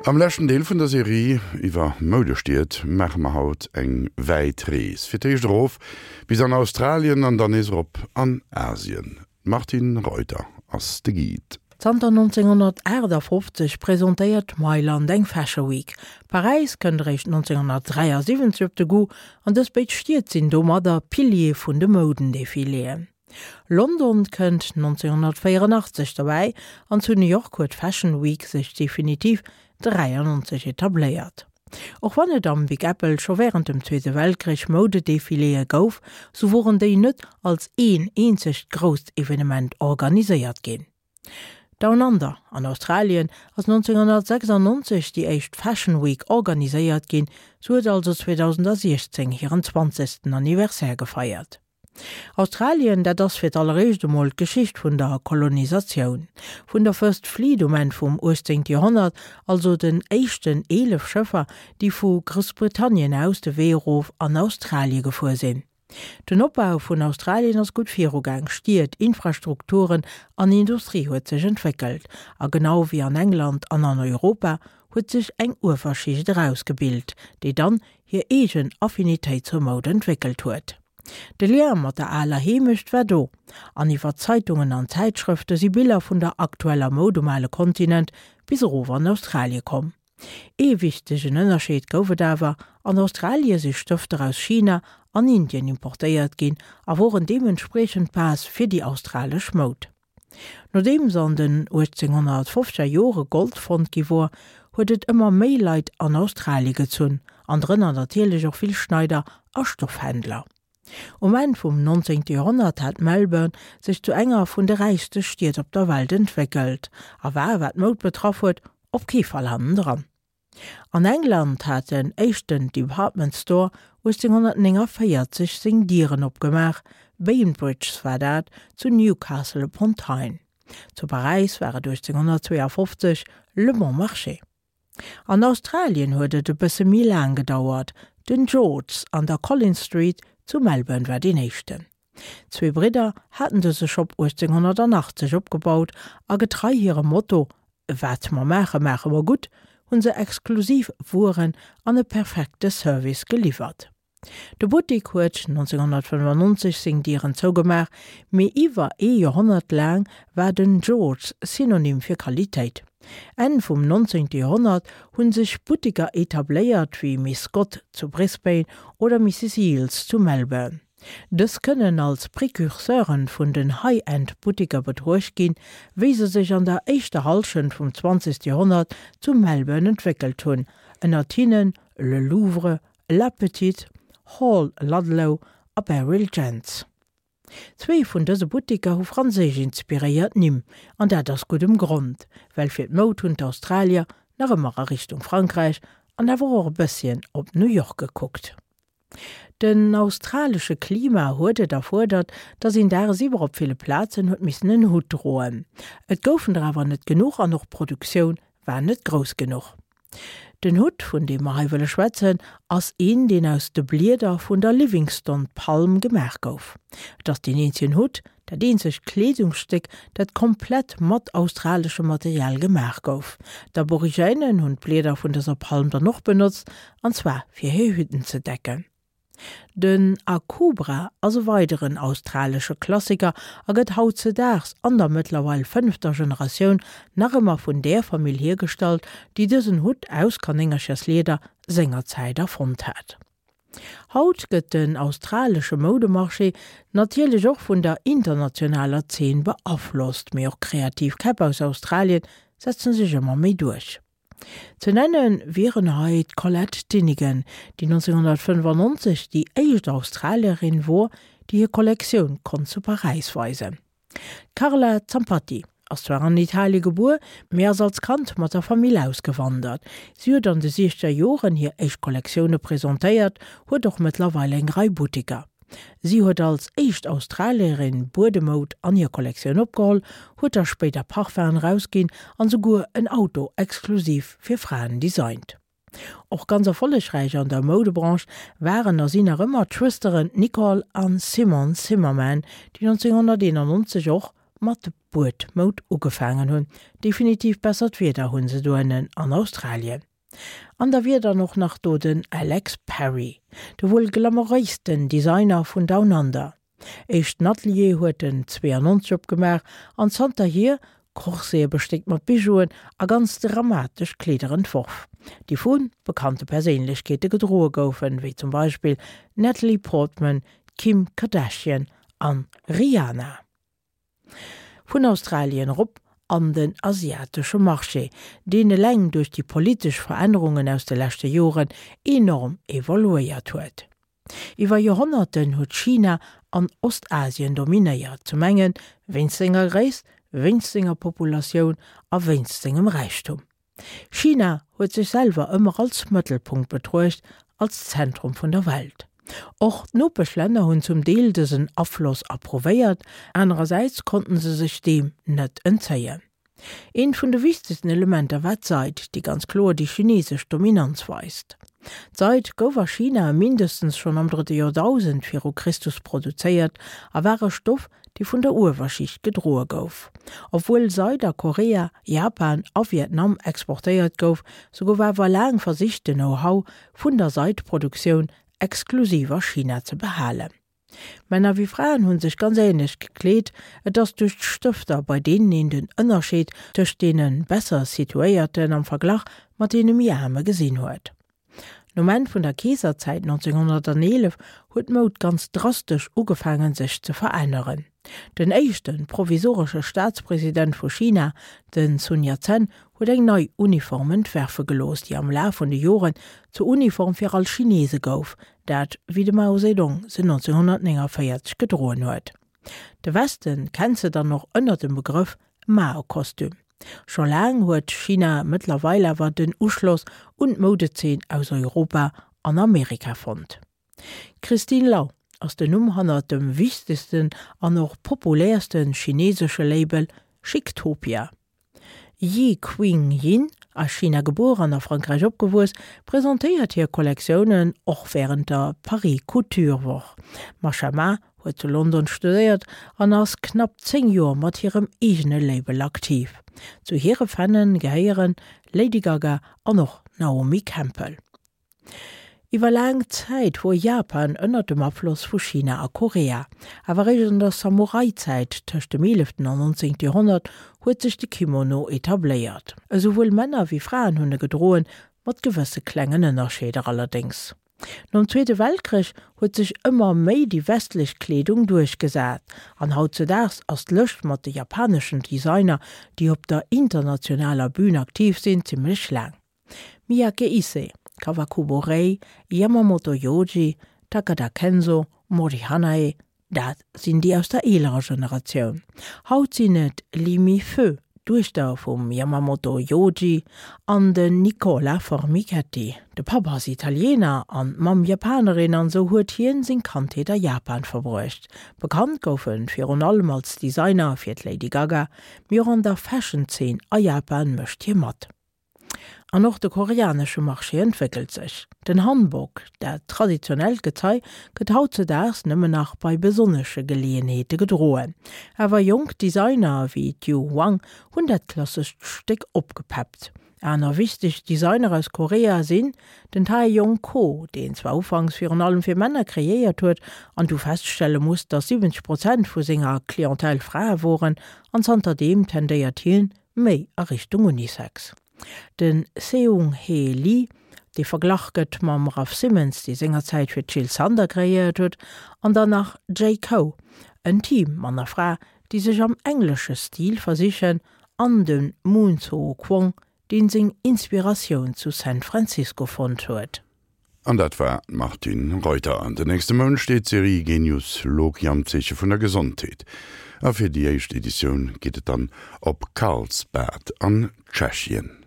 Am leschten Deel vun der Serie iwwer Moudestied maache mer haut eng wäit Rees. Fir d'éischt erof bis an Australien an dann nees erop an Asien. D'Martine Reuter ass de Guide. Zanter 1958 presentéiert Mailand eng Fashion Week. Paräis kënnt eréischt 1973 op de Goût an dës béid Stied sinn domadder Piliere vun de Moudendefiléen. London kënnt 1984 derbäi an zu New York huet d'Fashion Week sech definitiv 93 etabléiert. Och wann et am Big Apple scho wärend dem Zweete Weltkrich Moudedefiléë gouf, sou woren déi net als een eenzegt grousst Evenement organiséiert ginn. Down Under an Australien ass 1996 déi éischt Fashion Week organiséiert ginn, se huet also 2016 hiren zwanzegsten Anniversaire gefeiert. Australien, dat ass fir d'alleréischt emol d'Geschicht vun der Kolonisatioun. Vun der First Fleet um Enn vum 18. Joerhonnert, also den éischten 11 Schëffer, déi vu Groussbritannien aus de Wee erof an Australie gefuer sinn. Den Opbau vun Australien ass gutt virugaang, Stied, Infrastrukturen an Industrie huet sech entwéckelt. A genau wéi an England an an Europa huet sech eng Uewerschicht erausgebilt, déi dann hir eegen Affinitéit zur Moud entwéckelt huet. De Lien mat der aler Heemecht war do, an iwwer Zeitungen an Zäitschrëfte si Biller vun der aktueller Moud um ale Kontinent bis erof an Australie komm. Ee wichtegen Ënnerscheed gouf et awer, An Australie si Stëfter aus China an Indien importéiert ginn a woren deementspriechend d'Base fir déi australesch Moud. Nodeems an den 1850er Jore Gold fonnt gi wor, huet et ëmmer méi Leit an Australie gezunn, an drënner natierlech och vill Schneider a Stoffhändler. Um Enn vum 19. Joerhonnert hat Melbourne sech zu enger vun de räichste Stied op der Welt entwéckelt a war, wat d'Moud betraff huet, op kee Fall hannendran. An England hat den éischten Department Store 1849 seng Dieren opgemaach, Bainbridge's war dat zu Newcastle upon Tyne. Zu Paräis war et 1852 Le Bon Marché. An Australien huet et e bësse méi laang gedauert, den George's an der Collins Street zu Melbourne war deen éischten. Zwee Bridder haten dëse Shop 1880 opgebaut a getrei hirem Motto Wat mer maache, maache mer gutt hunn se exklusiv Wueren an e perfekte Service geliwwert. De Buttik huet 1995 seng Dieren zougemaach, mee iwwer ee Joerhonnert laang war den George's Synonym fir Qualitéit. Enn vum 19. Joerhonnert hu sech Buttiker etabléiert wéi Miss Scott zu Brisbane oder Misses Eales zu Melbourne. Dës kënnen als Precurseuren vun den High-End-Buttiker betruecht ginn, wéi se sech an der éischter Hallschent vum 20. Joerhonnert zu Melbourne entwéckelt hunn, ënnert hinnen Le Louvre, La Petite, Hall Ludlow a Beryl Jentz. Zwee vun dëse Buttiker hu franséisch inspiréiert Nimm, an dat ass guddem Grond, well fir d'Moud hunn d'Australier nach ëmmer a Richtung Frankräich an awer och e bësschen op New York gekuckt. Den australesche Klima huet et erfuerdert, datt een dagsiwwer op ville Plazen huet missen en Hutt droen. Et goufen der awer net genuch an och d'Produktioun war net grouss genuch. Den Hutt, vun deem mer hei wëlle schwätzen, ass een, deen aus de Blieder vun der Livingstone-Palm gemaach gouf. Et ass deen eenzegen Hutt, dat eenzegt Kleedungsstéck, dat komplett mat australeschem Material gemaach gouf. D'Aborigènen hunn d'Blieder vun dëser Palm dann och benotzt, an zwar fir hir Hütten ze decken. Den Akubra ass e weideren australesche Klassiker a gëtt hautzedaags an der mëttlerweil fënnefter Generatioun nach ëmmer vun där Famill hiergestallt, déi dësen Hutt aus Kanéngercherslieder sengerzäit erfonnt hat. Haut gëtt den australesche Moudemarché natierlech och vun der internationaler Zeen beaflosst, mee och kreativ Käpp aus Australien setzen sech ëmmer méi duerch. Ze nenne wieren hei d'Colette Dinnigan, déi 1995 déi éischt Australierin wor, déi hir Kollektioun konnt zu Paräis weisen. D'Carla Zampatti ass zwar an Italie gebuer, mee ass als Kand mat der Famill ausgewandert. Si huet an de siechzeger Joren hir éischt Kollektioune presentéiert, huet och mëttlerweil eng Rei Butteker. Si huet als éischt Australierin Buedemoud an hir Kollektioun opgeholl, huet da spéider Parfum'en erausginn an souguer en Auto exklusiv fir Fraen designt. Och ganz erfollegräich an der Moudebranche waren a sinn nach ëmmer d'Schwësteren Nicole an Simone Zimmerman, déi 1991 och mat. Buedmoud ugefaangen hunn. Definitiv bessert Wieder hunn se doënnen an Australien. An da wier dann och nach do den Alex Perry, de wuel glamouréisten Designer vun Down Under. Éischten Atelier huet en 92 opgemaach an zanterhier Corsete bestéckt mat Bijouen a ganz dramatesch Kleeder entworf, déi vu bekannte Perséinlechkeete gedroe goufen, wéi zum Beispill d'Natalie Portman, d'Kim Kardashian an Rihanna. Vun Australien erop an den asiatesche Marché, deen eleng duerch déi politesch Verännerungen aus de leschte Joren enorm evoluéiert huet. Iwwer Joerhonnerten huet China an Ostasien dominéiert, zum enge wéinst senger Gréisst, wéinst senger Populatioun a wéinst sengem Räichtum. China huet sech selwer ëmmer als Mëttelpunkt betruecht, als Zentrum vun der Welt. Och d'Nopeschlänner hunn zum Deel dësen Afloss approuvéiert, anerersäits konnten se sech deem net entzéien. Eent vun de wichtegsten Elementer war d'Seid, déi ganz kloer déi chinesesch Dominanz weist. D'Seid gouf a China mindestens schonn am drëtte Joerdausend viru Christus produzéiert a war e Stoff, dee vun der Uewerschicht gedroe gouf. Obwuel Seid a Korea, Japan a Vietnam exportéiert gouf, sou gouf awer laang versicht de Know-how vun der Seidproduktioun exklusiv a China ze behalen. Männer wéi Fraen hunn sech ganz ähnlech gekleet, et ass duerch d'Stëfter, bei deenen een den Ënnerscheed tëscht deene besser situéierten am Verglach mat deene méi aarme gesinn huet. Nom Enn vun der Keeserzäit 1911 huet d'Moud ganz drastesch ugefaangen sech ze veränneren. Den éischte provisoresche Staatspresident vu China, den Sun Yat-sen, huet eng nei Uniform entwerfe gelooss, déi am Laf vun de Joren zur Uniform fir all Chinese gouf, dat wéi de Mao Zedong se 1949 gedroen huet. De Westen kennt se dann och ënner dem Begrëff Mao-Kostüm. Scho laang huet China mëttlerweil awer den Uschloss un d'Moudezeen aus Europa an Amerika fonnt. D'Christine Lau ass den Numm hannert dem wichtegsten an och populäerste chinesesche Label Chictopia. Yi Qing Yin, a China gebuer an a Frankräich opgewuess, presentéiert hir Kollektiounen och wärend der Paris Couture Woch. D'Masha Ma huet zu London studéiert an ass knapp 10 Joer mat hirem eegene Label aktiv. Zu hire Fanne gehéieren Lady Gaga an och Naomi Campbell. Iwwer laang Zäit wor Japan ënner dem Afloss vu China a Korea. Awer eréischt an der Samurai-Zäit tëscht dem eeleften an nonzéngte Joerhonnert huet sech de Kimono etabléiert. Esouwuel Männer wéi Fraen hunn e gedroen, mat gewësse klengen Ënnerscheeder allerdéngs. Nom Zweete Weltkrich huet sech ëmmer méi déi westlech Kleedung duerchgesat an hautzedaags ass d'Lëscht mat de japaneschen Designer, déi op der internationaler Bün aktiv sinn, zimmlech laang. Miyake Issei, Kawakubo Rei, Yamamoto Yoji, Takada Kenzo, Mori Hanae, dat sinn déi aus der eelerer Generatioun. Haut sinn et Lee Mi Feu, d'Duechter vum Yamamoto Yoji, an den Nicola Formichetti. De Papp ass Italiener an d'Mamm Japanerin an esou huet hien seng Kandheet a Japan verbruecht. Bekannt gouf en virun allem als Designer fir d'Lady Gaga, mee och an der Fashion-Zeen a Japan mécht hie mat. An och de koreanesche Marché entwéckelt sech. Den Hanbok, dat traditionellt Gezei, gëtt hautzedaags nëmmen nach bei besonnesche Geleeënheete gedroen. Awer jonk Designer wéi d'Yu Hwang hunn dat klassescht Stéck opgepeppt. Aner wichteg Designer aus Korea sinn den Tae Yong Ko, deen zwar ufanks virun allem fir Männer kreéiert huet an du feststelle musst, datt 70 Prozent vu senger Clientèle Frae woren, an zanterdeem tendéiert hien méi a Richtung Unisex. De Seung Hee Lee, dee verglach gëtt mam Raf Simons, dee sengerzäit fir d'Jil Sander kreéiert huet, an dann nach J. Ko, en Team, Mann a Fra, déi sech am englesche Stil versichen, an de Moon Soo Kwong, deen seng Inspiratioun zu San Francisco fonnt huet. An dat war d'Martine Reuter. An den nächste Mount steet d'Serie Genius Loci am Zeeche vun der Gesondheet. A fir déi éischt Editioun geet et dann op Karlsbad an Tschechien.